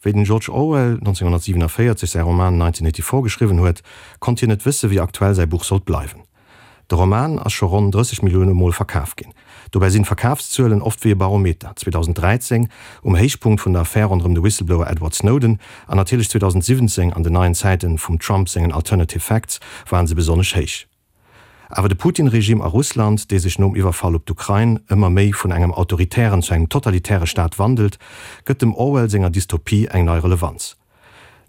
Wéi den George Orwell 1947 säi Roman 1984 geschriwwen huet, konnt hien net wësse wéi aktuell säi Buch sollt bleiwen. De Roman ass scho ronn 30 Millioune Mol verkaf ginn. Dobäi sinn d'Verkafszuelen oft wéi e Barometer, 2013 um Héichpunkt vun der Affär ronderëm de Whistleblower Edward Snowden an natierlech 2017 an den neien Zäiten vum Trump sengen Alternative Facts waren se besonnesch héich. Awer de Putin-Regime a Russland, dee sech nom Iwwerfall op d'Ukrain ëmmer méi vun engem autoritären zu engem totalitäre Staat wandelt, gëtt dem Orwell senger Dystopie eng nei Relevanz.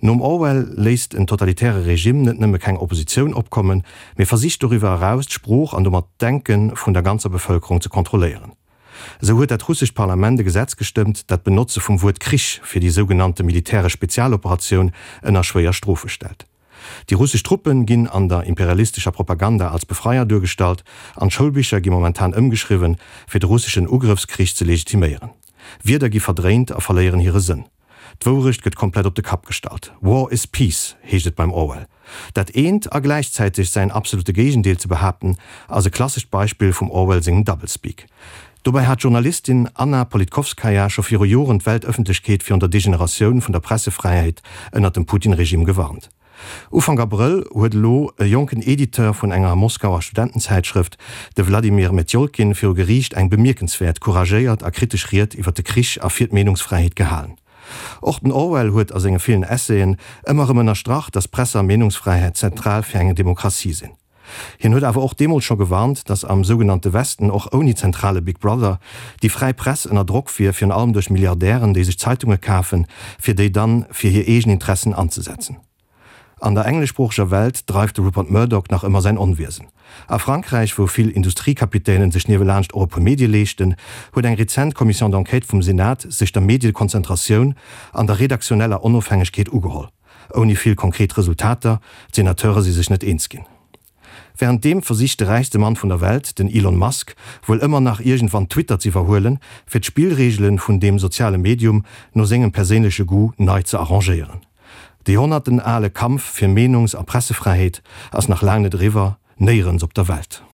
Nom Orwell léisst en totalitäre Regime net nëmme keng Oppositioun opkommen, mee versicht doriwwer eraus d'Sprooch an domat d'Denke vun der ganzer Bevëlkerung ze kontrolléieren. Esou huet dat russescht Parlament e Gesetz gestëmmt, dat d'Benotze vum Wuert Krich fir déi sougenannte militäresch Spezialoperatioun ënner schwéier Strofe stellt. Déi russesch Truppen ginn an der imperialistescher Propaganda als Befreier duergestallt an d'Schoulbicher gi momentan ëmgeschriwwen, fir de russeschen Ugrëffskrich ze legitiméieren. Wierder gi verdréint a verléieren hire Sënn. D'Wourecht gëtt komplett op de Kapp gestallt. War is peace, heescht et beim Orwell. Dat eent a gläichzäiteg säin absolute Géigendeel ze behaapten, ass e klassescht Beispill vum Orwell sengem Doublespeak. Dobäi hat d'Journalistin Anna Politkovskaja scho viru Joren d'Weltëffentlechkeet virun der Degeneratioun vun der Pressefräiheet ënnert dem Putin-Regime gewarnt. Ufank Abrëll huet elo e jonken Editeur vun enger Moskauer Studentenzäitschrëft, de Wladimir Metjolkin, viru Geriicht eng bemierkenswäert couragéiert a kritesch Ried iwwer de Krich a fir d'Meenungsfräiheet gehalen. Och den Orwell huet a senge villen Essayen ëmmer erëm ënnerstrach, datt Presse a Meenungsfräiheet zentral fir eng Demokratie sinn. Hien huet awer och deemools scho gewarnt, datt am sougenannte Westen och ouni zentrale Big Brother déi fräi Press ënner Drock wier, virun allem duerch Milliardären, déi sech Zeitunge kafen, fir déi dann fir hir eegen Interessen anzesetzen. An der engleschsproocheger Welt dreift de Rupert Murdoch nach ëmmer säin Onwiesen. A Frankräich, wou vill Industriekapitänen sech niewelaanscht och e puer Medie leeschten, huet eng rezent Commission d'enquête vum Senat sech der Mediekonzentratioun an der redaktioneller Onofhängegkeet ugeholl. Ouni vill konkret Resultater, d'Senateure si sech net eens ginn. Wärenddeem versicht de räichste Mann vun der Welt, den Elon Musk, wuel ëmmer nach iergendwann Twitter z'iwwerhuelen, fir d'Spillreegele vun deem soziale Medium no sengem perséinleche Goût nei ze arrangéieren. De joerhonnertenale Kampf fir Meenungs a Pressefräiheet ass nach laang net eriwwer, néierens op der Welt.